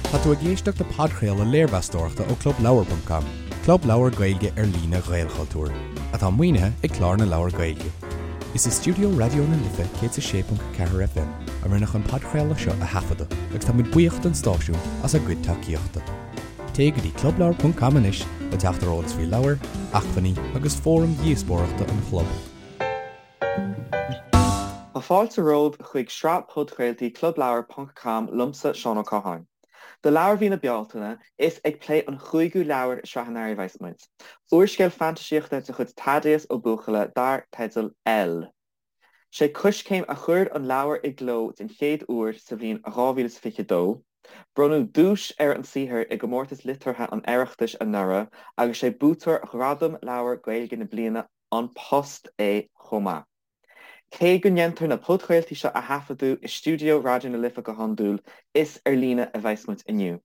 Tá tú ag éisteacht le podchraoladh léirmheastóireachta ó ClubLeabhar.com, club leabhar Gaeilge ar líne Ghaelchultúir, atá maoinithe ag Clár na Leabhar Gaeilge. Is i stiúideo Raidió na Life 106.4 FM a rinneadh an podchraoladh seo a thaifeadadh agus tá muid buíoch don stáisiún as a gcuid tacaíochta. Téigh go dtí clubleabhar.com anois le teacht ar eolas faoi leabhair, acmhainní agus fóraim dhíospóireachta an chlub. Tá fáilte romhaibh chuig sraith podchraoltaí Clubleabhar ponc com liomsa, Seán Ó Catháin. Do leabhar mhí na Bealtaine, is ag plé an chúigiú leabhar i Sraith an Earraigh a bheas muid. Úrscéal fantaisíochta de chuid Thaddeus Ó Buachalla dar teideal L. Sé Coiscéim a chuir an leabhar i gcló den chéad uair sa bhliain 2022. Bronnadh duais ar an saothar i gComórtas Liteartha an Oireachtais anuraidh agus sé buaiteoir Ghradam Leabhar Gaeilge na Bliana An Post é chomh maith. Cé go ndéantar na podchraoltaí seo a thaifeadadh i stiúideo Raidió na Life go hiondúil, is ar líne a bheas muid inniu.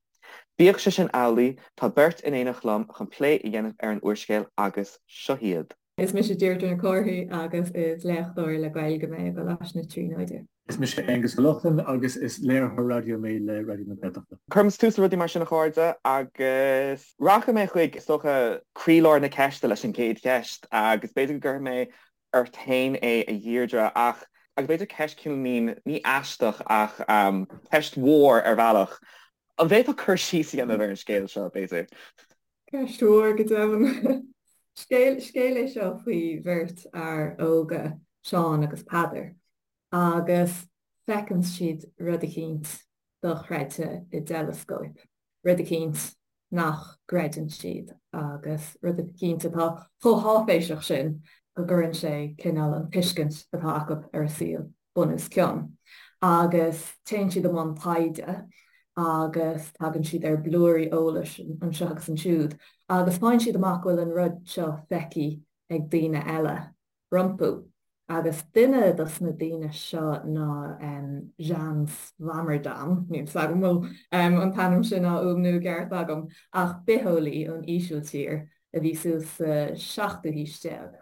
Bíodh sé sin amhlaidh, tá beirt in éineacht liom chun plé a dhéanamh ar an úrscéal agus seo hiad. Is mise Deirdre Nic Cárthaigh agus is léachtóir le Gaeilge mé i gColáiste na Tríonóide. Is mise Aonghus Ó Lochlainn agus is léiritheoir raidió mé le Raidió na Gaeltachta. Cuirfimid tús le rudaí mar sin a chairde agus rachaidh mé chuig, is dócha, croílár na ceiste leis an gcéad cheist agus b'fhéidir go gcuirfidh mé ort féin é a Dheirdre ach, agus b'fhéidir ceist cineál ní aisteach ach ceist mhór ar bhealach, an bhféadfá cur síos a dhéanamh ar an scéal seo b'fhéidir? Ceist mhór go deimhin. Scéal, scéal é seo faoi bheirt fhear óga, Seán agus Peadar. agus feiceann siad rud eicínt dochreidte i dteileascóip, rud eicínt nach gcreideann siad agus rud eicínt atá chomh háiféiseach sin go gcuireann sé cineál an tuiscint atá acu ar an saol bun os cionn. Agus téann siad i mbun taighde agus tagann siad ar blúirí eolais anseo agus ansiúd agus faigheann siad amach go bhfuil an rud seo feicthe ag daoine eile. rompu. Agus duine dos na daoine seo ná Jan Swammerdam, níl 's agam an bhfuil an t-ainm sin á fhuaimniú i gceart agam, ach bitheolaí ón Ísiltír a bhí suas sa seachtú haois déag.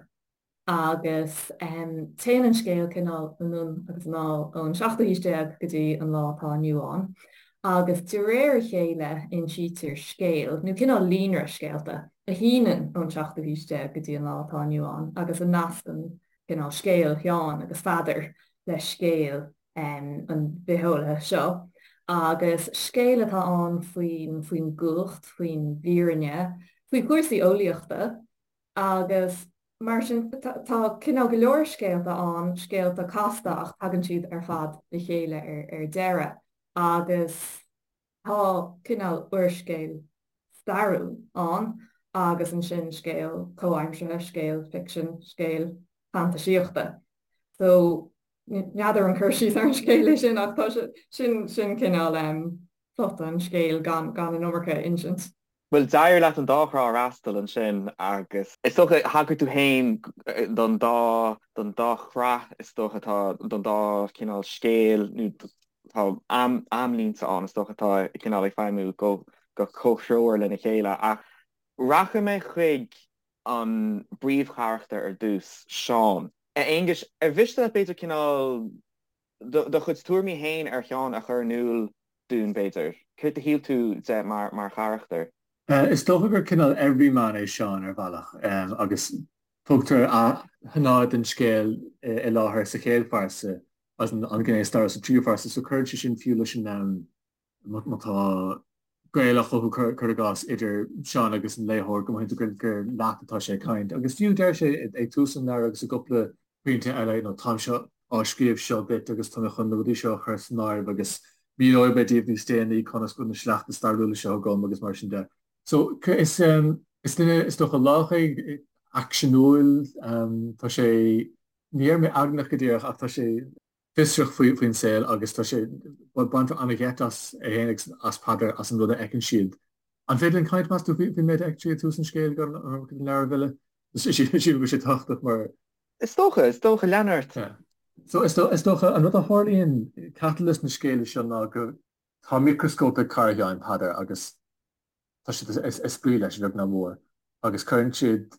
Agus téann an scéal cineál anonn agus anall ón seachtú haois déag go dtí an lá atá inniu ann. Agus de réir a chéile insítear scéal, nó cineál líonra scéalta, a shíneann ón seachtú haois déag go dtí an lá atá inniu ann agus a nascann cineál scéal Sheáin agus Pheadair le scéal an bhitheolaithe seo. Agus scéal atá ann faoin faoin gcumhacht, faoin bhfírinne, faoi chúrsaí eolaíochta agus mar sin tá cineál go leor scéalta ann, scéalta casta ach tagann siad ar fad le chéile ar deireadh. agus tá cineál úrscéal stairiúil ann agus ansin scéal comhaimseartha, scéal ficsin, scéal fantaisíochta. So, n'fheadar an cur síos ar an scéal é sin ach tá sé, sin, sin cineál plota an scéil gan, gan an iomarca a insint. Bhuel, d'éirigh leat an dá thrá a fhreastal ansin agus is dócha, thagair tú féin don dá, don dá shraith is dócha atá, don dá chineál scéil nó tá am, amlínte ann is dócha atá cineál ag feidhmiú go, go comhthreomhar lena chéile ach rachaidh mé chuig an bpríomhcharachtar ar dtús, Seán. A Aonghuis, ar mhiste leat b'fhéidir cineál do chuid tuairimí féin ar Sheán a chur in iúl dúinn, b'fhéidir? Céard a shíl tú de mar charachtar? Is dócha gur cineál everyman é Seán ar bhealach agus tugtar a shnáithe den scéal i láthair sa chéad phearsa agus an ghné stairiúil sa tríú phearsa so cuireann sé sin fiú leis an má tá gaol á chothú, cuir i gcás, idir Seán agus an léitheoir, go mothaíonn tú gur leat atá sé ag caint. Agus fiú deir sé ag tús an leabhair agus i gcúpla pointe eile, you know, táimse á scríobh seo duit agus tá mé chun na rudaí seo a chur san áireamh agus míneoidh mé daoibh níos déanaí conas go bhfuil na sleachta stairiúla seo agam agus mar sin de. So, is is duine is dócha lách é, aicseanúil, tá sé, ní déarfaidh mé eagnach go díreach ach tá sé, fiosrach faoin saol agus tá sé, baintear an-gheit as é féin agus as Peadar as an rud a fheiceann siad. An féidir linn caint, meas tú, faoin méid a fheiceann siad ag tús an scéil gan an iomarca den leabhar a mhilleadh? Sílim go bhfuil sé tábhachtach mar. Is dócha, is dócha, lean ort. Yeah. So is dócha, an rud a tharlaíonn, catalyst na scéala seo ná go. Tá micreascóp ag cara Sheáin, Peadar, agus tá siad ag spraoi leis, a bheag ná mór, agus cuireann siad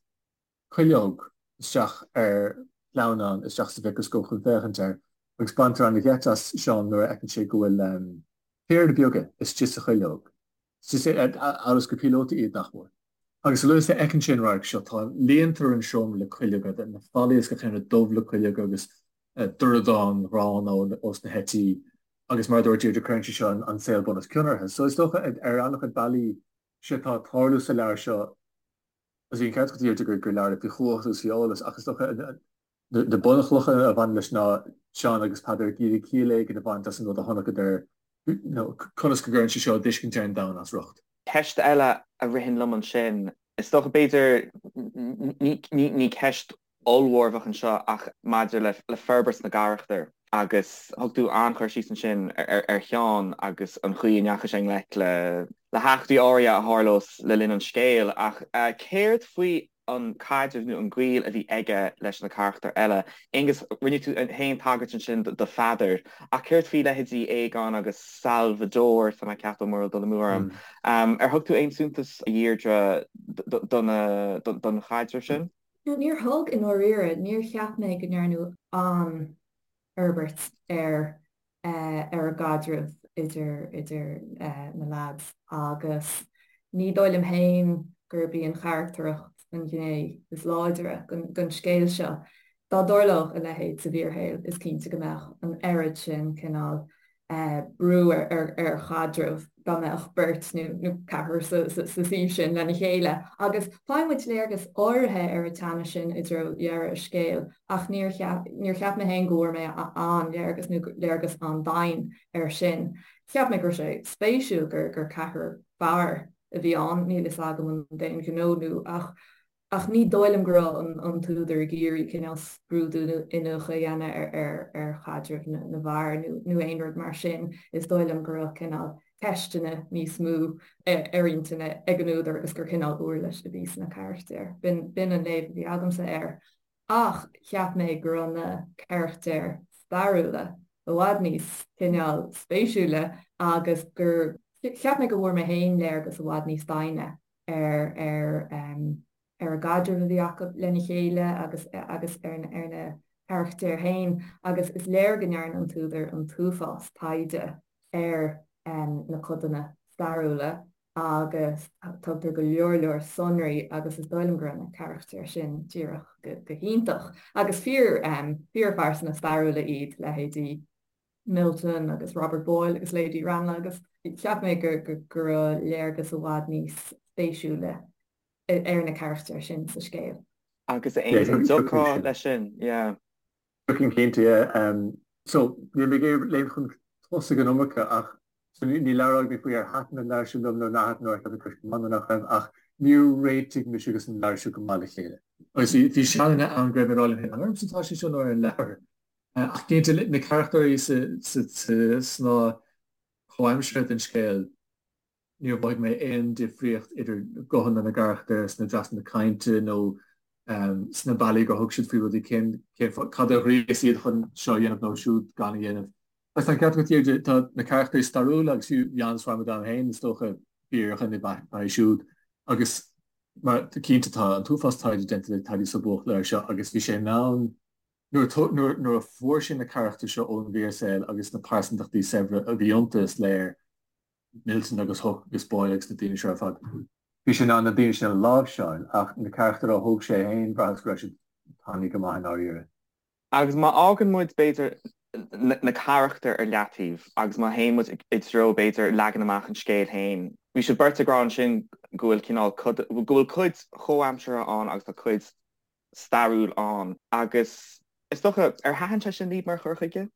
cuileog isteach ar shleamhnán isteach sa mhicreascóp chun féachaint air agus baintear an-gheit as Seán nuair a fheiceann sé go bhfuil piarda beaga istigh sa chuileog. Amhail is gur píolótaí iad, nach mór. Agus a luaithe is a fheiceann sé an radharc seo, tá líontar an seomra le cuileoga, na fallaí is gach aon rud dubh le cuileoga agus dordán gránna ós na heití agus mar a dúirt Deirdre cuireann sé seo an saol bun os cionn orthu. So is dócha ar an-chuid bealaí sé atá ag tarlú sa leabhar seo, agus bhí an ceart agat a Dheirdre gur leabhar é faoi chumhacht agus faoi eolas ach is dócha na bunchlocha a bhaineann leis ná Seán agus Peadar ag iarraidh ciall éigin a bhaint as an rud a chonaiceadar nó conas go gcuireann sé seo a dtuiscint ar an domhan as riocht. Ceist eile a ritheann liom ansin, is dócha b'fhéidir, ní ceist ollmhór a bheadh anseo ach maidir le forbairt na gcarachtar agus thug tú an-chur síos ansin ar Sheán agus an chaoi a ndeachaigh sé i ngleic le heachtraí áirithe a tharlós le linn an scéil ach céard faoi an caidreamh nó an gaol a bhí aige leis na carachtair eile. Aonghus, rinne tú féin tagairt ansin do Pheadar, ach céard faoi leithéidí Aogán agus Salvador, tá mé ag ceapadh, mura bhfuil dul amú orm. Ar thug tú aon suntas, a Dheirdre, don chaidreamh sin? No, níor thug, i ndáiríre. Níor cheap mé go ndearnadh an-fhorbairt ar ar an gcaidreamh idir idir na leaids agus ní dóigh liom féin gurb í an charactaracht an ghné is láidre den scéal seo. Dá dtarlódh a leithéid sa bhfíorshaol is cinnte go mbeadh an oiread sin cineál brú ar chaidreamh dá mbeadh beirt nó ceathrar sa suíomh sin lena chéile. Agus faigheann muid léargas áirithe ar an teannas sin i dtreo dheireadh an scéil ach níor níor cheap mé féin go bhfuair mé an-léargas nó léargas an-doimhin air sin. Cheap mé go raibh sé spéisiúil gur gur ceathrar fear a bhí ann, níl fhios agam an d'aon ghnó nó ach Ach ní dóigh liom go raibh an t-údar ag iarraidh cineál scrúdú nó iniúchadh a dhéanamh ar chaidreamh na bhfear nó aon rud mar sin. Is dóigh liom go raibh cineál ceisteanna níos mó ar intinn ag an údar agus gur cineál uirlis a bhí sna carachtair. B'in an léamh a bhí agamsa air. Ach cheap mé go raibh na carachtair stairiúla i bhfad níos cineál spéisiúla agus gur cheap mé go bhfuair mé féin léargas i bhfad níos doimhne ar ar ar an gcaidreamh a bhí acu lena chéile agus agus ar ar na carachtair féin agus is léir go ndearna an t-údar an t-uafás taighde ar na codanna stairiúla agus tugtar go leor leor sonraí agus is dóigh liom go raibh na carachtair sin díreach go go hiontach agus fíor fíorphearsana stairiúla iad leithéidí Milton agus Robert Boyle agus Lady Ranelagh agus cheap mé go go raibh léargas i bhfad níos spéisiúla ar na carachtair sin sa scéal. Agus a Aonghuis, an dtiocfá leis sin? Yeah. Thiocfainn cinnte, yeah. So, níl mé ag iarraidh léim chun tosaigh an iomarca ach so ní labhróidh mé faoi ar thaitin an leabhar seo liom nó nár thaitin nó ar cheap mé go raibh sé go maith nó nach raibh ach níor réitigh mise agus an leabhar seo go maith le chéile. Agus bhí sealanna ann go raibh mé ag rá liom féin, an ormsa atá sé seo nó ar an leabhar? Ach cinnte, na carachtair sa snáth comhaimseartha den scéal, níor mhothaigh mé aon difríocht idir guthanna na gcarachtar sna dreasanna cainte nó sna bealaí gur thug siad faoi rudaí, cén, cad a ghríos iad chun seo a dhéanamh nó siúd gan a dhéanamh. Agus tá an ceart agat, Deirdre, tá na carachtair stairiúla agus fiú Jan Swammerdam féin, is dócha, fíordhuine ab ea é siúd. Agus mar, cinnte, tá an t-uafás taighde déanta ag Thaddeus Ó Buachalla air seo agus bhí sé in ann Nuair a fuair sé na carachtair seo ón bhfíorshaol agus na pearsantachtaí saibhre a bhí iontu, is léir, Milton agus Hooke agus Boyle agus na daoine seo ar fad, bhí sé in ann na daoine sin a láimhseáil ach na carachtair a thóg sé féin, bhraitheas go raibh siad tanaí go maith i ndáiríre. Agus má fhágann muid, b'fhéidir, na carachtair ar leataobh agus má théann muid i dtreo, b'fhéidir, leagan amach an scéil féin, bhí sibh beirt ag rá ansin go bhfuil cineál, go bhfuil cuid chomhaimseartha ann agus tá cuid stairiúil ann agus is dócha, ar thaitin sé sin libh mar chur chuige?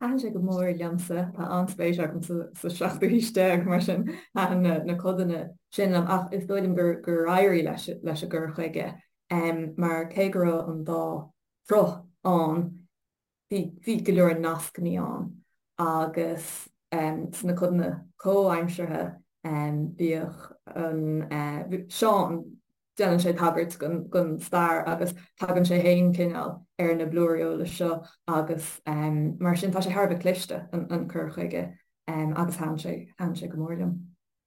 Thaitin sé go mór liomsa. Tá an-spéis agam sa seachtú haois déag, mar sin thaitin na codanna sin liom. Ach is dóigh liom gur éirigh leis leis an gcur chuige mar cé go raibh an dá shruth ann, bhí go leor nascanna ann agus sna codanna comhaimseartha bhíodh an Seán, déanann sé tagairt don stair agus tagann sé féin cineál ar na blúirí eolais seo agus mar sin tá sé thar a bheith cliste an cur chuige agus thaitin sé thaitin sé go mór liom.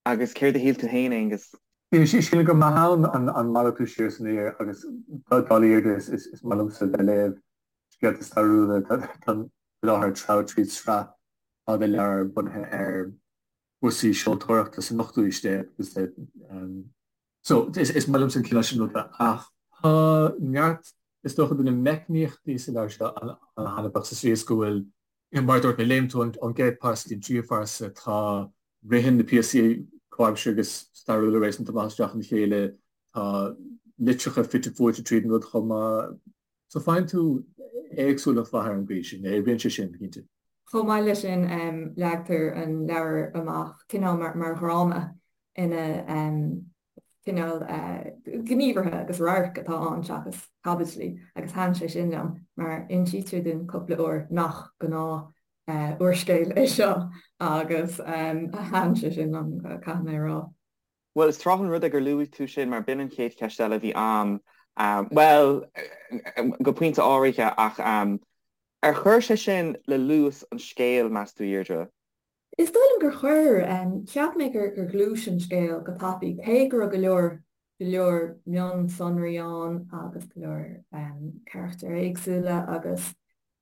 Agus céard a shíl tú féin, Aonghus? Sílim gur maith ann an malartú siar is aniar agus dála Dheirdre is maith liomsa bheith ag léamh scéalta stairiúla. Táim faoi láthair ag treabhadh tríd sraith fada leabhar bunaithe ar. Cúrsaí seoltóireachta san ochtú aois déag agus so is maith liomsa an cineál sin ruda ach tá neart is dócha de na meicníochtaí sa leabhar seo an-thaitneamhach sa tslí is go bhfuil mar a dúirt mé léimeann tú ón gcéad pearsa go dtí an tríú pearsa tá ritheann na píosaí comhaimseartha agus stairiúla réasúnta maith isteach ina chéile tá litreacha fite fuaite tríd an rud chomh maith. So faigheann tú éagsúlacht mhaith ar an gcaoi sin, oibríonn sé sin, cinnte. Chomh maith leis sin, leagtar an leabhar amach cineál mar dhráma ina cineál gníomhartha agus radhairc atá ann seachas caibidlí agus thaitin sé sin liom mar insítear dúinn cúpla uair nach gnáth úrscéal é seo agus thaitin sé sin liom, caithfidh mé a rá. Bhuel, is tráth an rud é gur luaigh tú sin mar b'in an chéad cheist eile a bhí a'm, bhuel, go pointe áirithe, ach ar chuir sé sin le luas an scéil, meas tú, a Dheirdre? Is dóigh liom gur chuir. Cheap mé gur ghluais an scéal go tapaidh, cé go raibh go leor, go leor mionsonraí ann agus go leor carachtair éagsúla agus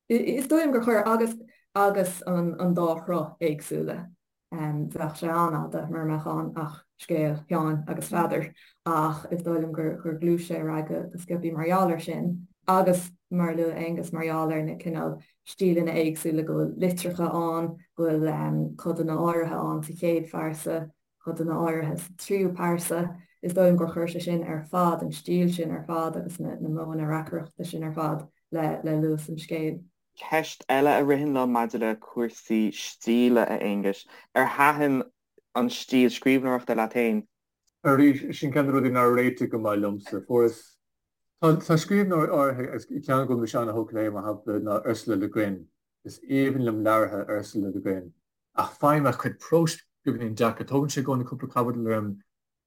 is dóigh liom gur chuir agus agus an dá shruth éagsúla. Bheadh sé an-fhada mura mbeadh ann ach scéal Sheáin agus Pheadair ach is dóigh liom gur ghluais sé ar aghaidh go sciobthaí mar gheall air sin agus, mar a luaigh Aonghus, mar gheall ar na cineál stíleanna éagsúla, go bhfuil litreacha ann, go bhfuil codanna áirithe ann sa chéad phearsa, codanna áirithe sa tríú pearsa. Is dóigh liom gur chuir sé sin ar fad, an stíl sin ar fad agus na modhanna reacaireachta sin ar fad le luas an scéil. Ceist eile a ritheann liom maidir le cúrsaí stíle, a Aonghuis, ar thaitin an stíl scríbhneoireachta leat féin? Arís, sin ceann de na rudaí nár réitigh go maith liomsa. Fuaireas. Tá scríbhneoirí áirithe, agus ceann go bhfuil mise an-thógtha léi, mar shampla, ná Ursula Le Guin. Is aoibhinn liom leabhartha Ursula Le Guin. Ach faighim a cuid próis beagáinín deacair. Tógann sé i gcónaí cúpla caibidil orm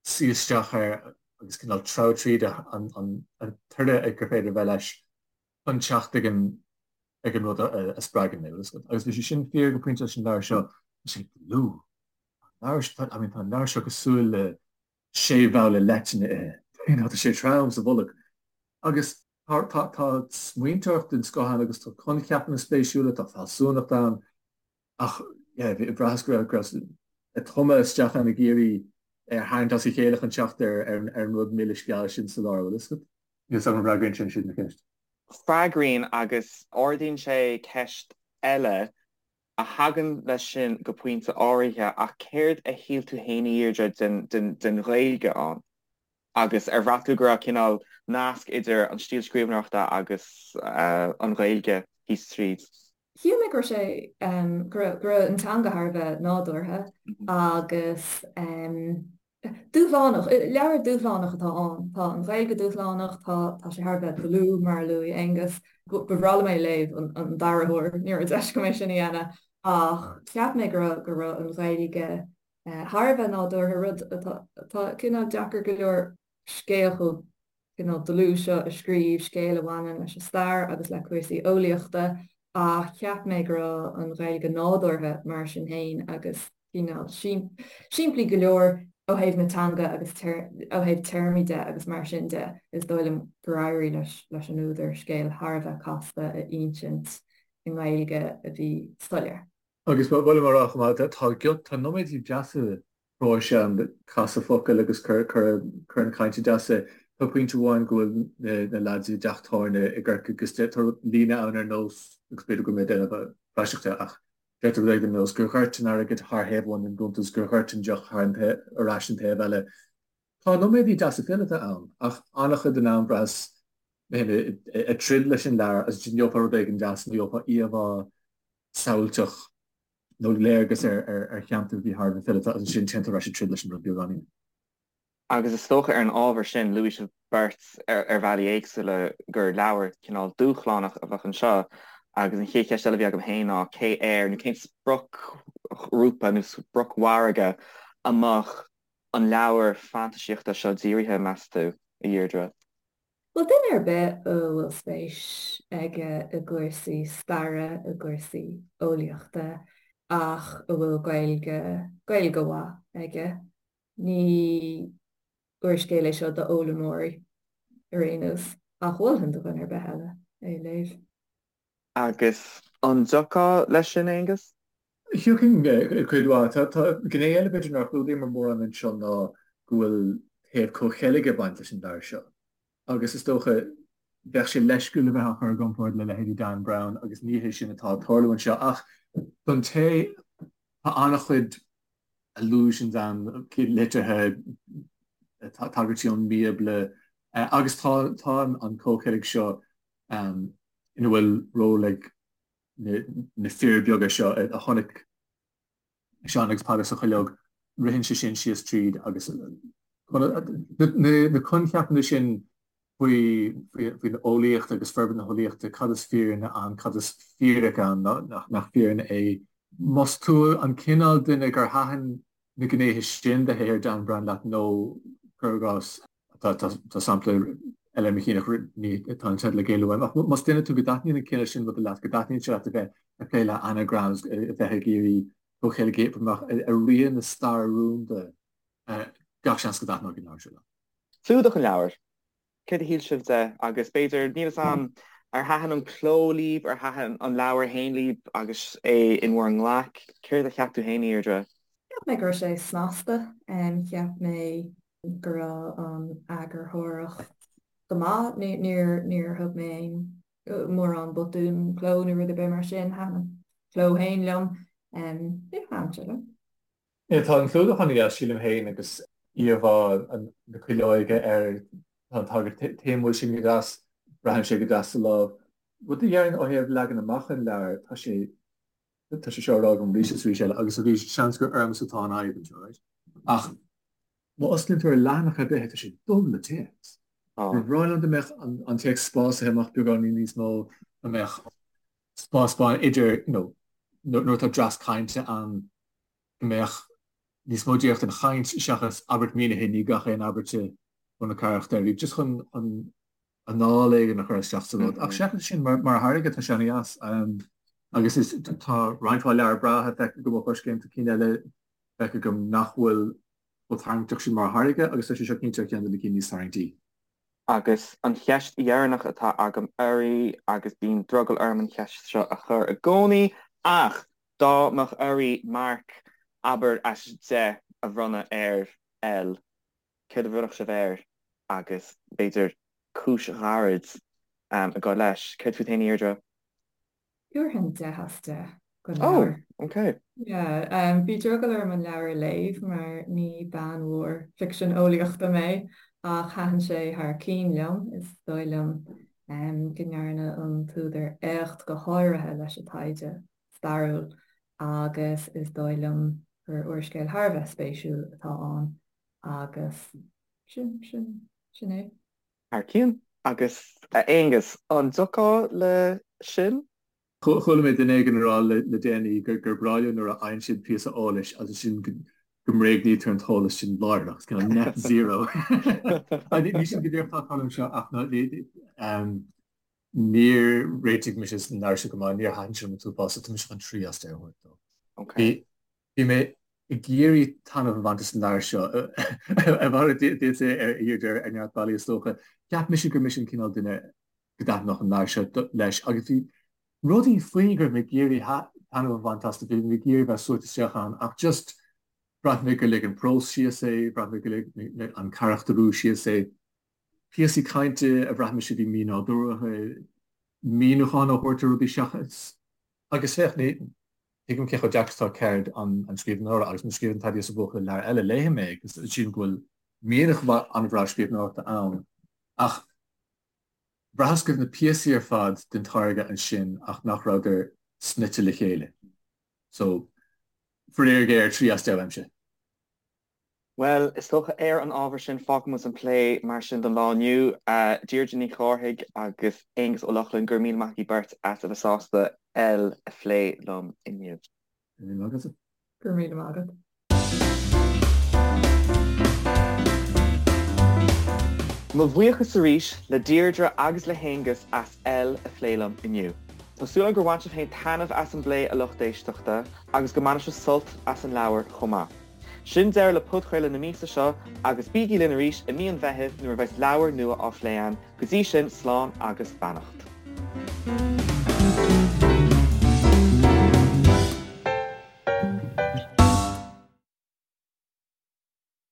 suí isteach air agus cineál treabhadh tríd an toradh gur féidir a bheith leis. chun teacht ag an ag an rud a spreagann mé, bhfuil a fhios agat. Agus bhí sé sin fíor go pointe leis an leabhar seo, tá sé dlúth. An leabhar seo, I mean, tá an leabhar seo cosúil le sé bhabhla leitinne a ithe. You know, tá sé trom sa bholg. Agus tá, tá, tá smaointeoireacht den scoth ann agus tá coincheapanna spéisiúla, tá fealsúnacht ann. Ach, yeah, bhraitheas go raibh, go raibh ag tumadh isteach ann ag iarraidh é a tharraingt as a chéile chun teacht ar, ar an, ar an rud milis geal sin sa lár, bhfuil a fhios agat? Níl 's agam an bhfreagraíonn sin siad mo cheist. Freagraíonn agus ardaíonn sé ceist eile a thagann leis sin go pointe áirithe ach céard a shíl tú féin a Dheirdre den, den, den Ghaeilge ann? Agus ar bhraith tú go raibh cineál nasc idir an stíl scríbhneoireachta agus an Ghaeilge thíos tríd? Shíl mé go raibh sé, go raibh, go raibh an teanga thar a bheith nádúrtha agus dúshlánach. Leabhar dúshlánach atá ann. Tá an Ghaeilge dúshlánach, tá, tá sé thar a bheith dlúth, mar a luaigh Aonghus. Ba bhreá liom é a léamh an, an dara huair, ní raibh deis agam é sin a dhéanamh ach cheap mé go raibh, go raibh an Ghaeilge thar a bheith nádúrtha, rud atá, atá cineál deacair go leor scéal chomh cineál dlúth seo a scríobh, scéal a bhaineann leis an stair agus le cúrsaí eolaíochta, ach cheap mé go raibh an Ghaeilge nádúrtha mar sin féin agus cineál simplí go leor ó thaobh na teanga agus ó thaobh téarmaí de agus mar sin de. Is dóigh liom gur éirigh leis leis an údar scéal thar a bheith casta a insint i nGaeilge a bhí soiléir. Agus ba mhaith liom a rá chomh maith, tá tá nóiméidí deasa próis ann, casadh focal agus cur chun cainte deasa. Tá pointe amháin go bhfuil na leaids i dteach tábhairne i gCorcaigh agus tá líne ann ar nós, agus b'fhéidir go bhfuil mé ag déanamh praiseach de, ach deirtear rud éigin ar nós gur dhoirt an airgead thar thaobh amháin den gcuntas, gur dhoirt an deoch thar an ar ais an taobh eile. Tá nóiméadaí deasa fileata ann ach an-chuid den am bhraitheas mé féin ag troid leis an leabhar agus ansin gheofá rud éigin deas nó gheofá íomhá samhailteach nó léargas ar cheantar a bhí thar a bheith fileata agus ansin téann tú ar ais ag troid leis an rud beagáinín. Agus is dócha ar an ábhar sin, luaigh sibh beirt ar bhealaí éagsúla gur leabhar cineál dúshlánach a bheadh anseo agus an chéad cheist eile a bhí agam féin ná cé air nó cén spriocghrúpa nó spriocmhargadh a mbeadh an leabhar fantaisíochta seo dírithe, meas tú, a Dheirdre? Bhuel, duine ar bith a bhfuil spéis aige i gcúrsaí staire, i gcúrsaí eolaíochta, ach a bhfuil Gaeilge, Gaeilge mhaith aige, ní úrscéal é seo d'fhoghlaimeoirí ar aon nós, ach mholfainn do dhuine ar bith eile é a léamh. Agus an dtiocfá leis sin, Aonghus? Thiocfainn cuid mhaith. Tá gné eile b'fhéidir nár chlúdaíomar mórán anseo ná go bhfuil taobh comhcheilge ag baint leis an leabhar seo. Agus is dócha, bheadh sé leisciúil a bheith á chur i gcomparáid le leithéidí Dan Brown agus ní hé sin atá ag tarlú anseo. Ach don té, tá an-chuid allusions ann, liteartha, tagairtí ón mBíobla agus tá an comhcheilg seo ina bhfuil ról ag na fir beaga seo a chonaic Seán agus Peadar sa chuileog, ritheann sé sin síos tríd agus na coincheapanna sin faoin eolaíocht agus forbairt na heolaíochta, cad is fírinne ann, cad is fíric ann, nach fírinne é. Más tú an cineál duine gur thaitin na gnéithe sin de shaothar Dan Brown leat nó, cuir i gcás, Tá sampla eile ar mo chinn ach ní tá an teideal ag éalú uaim. Ach más duine tú go dtaitníonn an cineál sin ruda leat, go dtaitníonn sé leat a bheith ag plé le anagrams, a bheith ag iarraidh comhcheilg a oibriú amach ar rian na staire rúnda, gach seans go dtaitneoidh an leabhar seo leat. Clúdach an leabhair. Céard a shíl sibh de? Agus b'fhéidir, níl 'fhios a'm, ar thaitin an cló libh, ar thaitin an leabhar féin libh agus é in bhur nglaic? Céard a cheap tú féin, a Dheirdre? Cheap mé go raibh sé snasta. Cheap mé go raibh an eagarthóireacht go maith. Níor níor thug mé aon mórán botún cló nó rud ar bith mar sin. Thaitin an cló féin liom. Yeah, thaitin sé liom. Yeah, tá an clúdach an-dheas, sílim féin, agus íomhá na cuileoige air, tá an tagairt téamúil sin go deas, braitheann sé go deas sa lámh. Rud a déarfainn ó thaobh leagan amach an leabhair, tá sé tá sé seo á rá agam arís is arís eile, agus arís, seans gur ormsa atá an fhadhb anseo, right? Ach má osclaíonn tú ar leathanach ar bith, tá sé dubh le téacs. Ba bhreá liom dá mbeadh an téacs spásaithe amach beagáinín níos mó, dá mbeadh spás bán idir, you know, nuair atá dreas cainte ann, go mbeadh níos mó díreach den chaint seachas abairt mínithe i ndiaidh gach aon abairte ó na carachtair, just chun anáil éigin a chur isteach sa rud. Ach seachas sin, mar tháirge, tá sé an-dheas. Agus is tá roinnt mhaith leabhar breátha feicthe agam ó Choiscéim, tá cinn eile feicthe agam nach bhfuil chomh tarraingteach sin mar tháirge agus tá sé seo cinnte ar cheann de na cinn níos tarraingtí. Agus an cheist dheireanach atá agam oraibh, agus bíonn drogall orm an cheist seo a chur i gcónaí, ach dá mbeadh oraibh marc, abair, as 10 a bhronnadh ar L, céard a bhronnfadh sibh air agus b'fhéidir cúis ghairid ag gabháil leis? Céard fút féin, a Dheirdre? Thabharfainn 10 as 10 don leabhar. Oh, ok. Yeah, bhí drogall orm an leabhar a léamh mar ní bean mhór ficsean eolaíochta mé ach thaitin sé thar cinn liom. Is dóigh liom go ndearna an t-údar éacht go háirithe leis an taighde stairiúil agus is dóigh liom gur úrscéal thar a bheith spéisiúil atá ann agus sin, sin, sin é. Thar cionn. Agus a Aonghus, an dtiocfá le sin? Chuala mé duine éigin ag rá le déanaí gur breá leo nuair a fhaigheann siad píosa eolais agus ansin go mbréagnaítear an t-eolas sin láithreach. It's kind of net zero. Ní sin go díreach atá ag tarlú anseo ach níor réitigh mise an leabhar seo go maith, níor thaitin sé liom an t-uafás, so tá mise chun 3 as 10 a thabhairt dó. Okay. Bhí mé ag iarraidh taitneamh a bhaint as an leabhar seo, a mhalairt duitse a Dheirdre ar neart bealaí is dócha. Cheap mise gur mise an cineál duine go dtaitneodh an leabhar seo leis agus bhí rudaí faoi go raibh mé ag iarraidh taitneamh a bhaint as, bhí mé ag iarraidh bheith suaite isteach ann ach just bhraith mé gur lig an prós síos é, bhraith mé gur lig an carachtarú síos é. Píosaí cainte a bhraith mise a bhí mínádúrtha, míniúchán á thabhairt ar rudaí seachas. Agus féach, ní thuigim cé chomh deacair is atá ceird an scríbhneora, agus má scríobhann Taidí sa Bhuachaill leabhar eile, léifidh mé é, agus sílim go bhfuil mianach an-bhreá scríbhneoireachta ann. Ach bhraitheas go raibh na píosaí ar fad den táirge ansin ach nach rabhadar snoite le chéile. So, faraor géar, 3 as 10 uaimse. Bhuel, is dócha ar an ábhar sin, fágfaidh muid an plé mar sin don lá inniu. Deirdre Ní Chárthaigh agus Aonghus Ó Lochlainn, go raibh míle maith agaibh beirt as a bheith sásta L a phlé liom inniu. Go raibh míle maith agatsa. Go raibh míle maith agat. Mo bhuíochas arís le Deirdre agus le hAonghus as L a phlé liom inniu. Tá súil agam gur bhain sibh féin taitneamh as an bplé, a lucht éisteachta, agus go mbainfidh sibh sult as an leabhar chomh maith. Sin deireadh le podchraoladh na míosa seo agus bígí linn arís i mí an Mheithimh nuair a bheas leabhar nua á phlé againn. Go dtí sin, slán agus beannacht.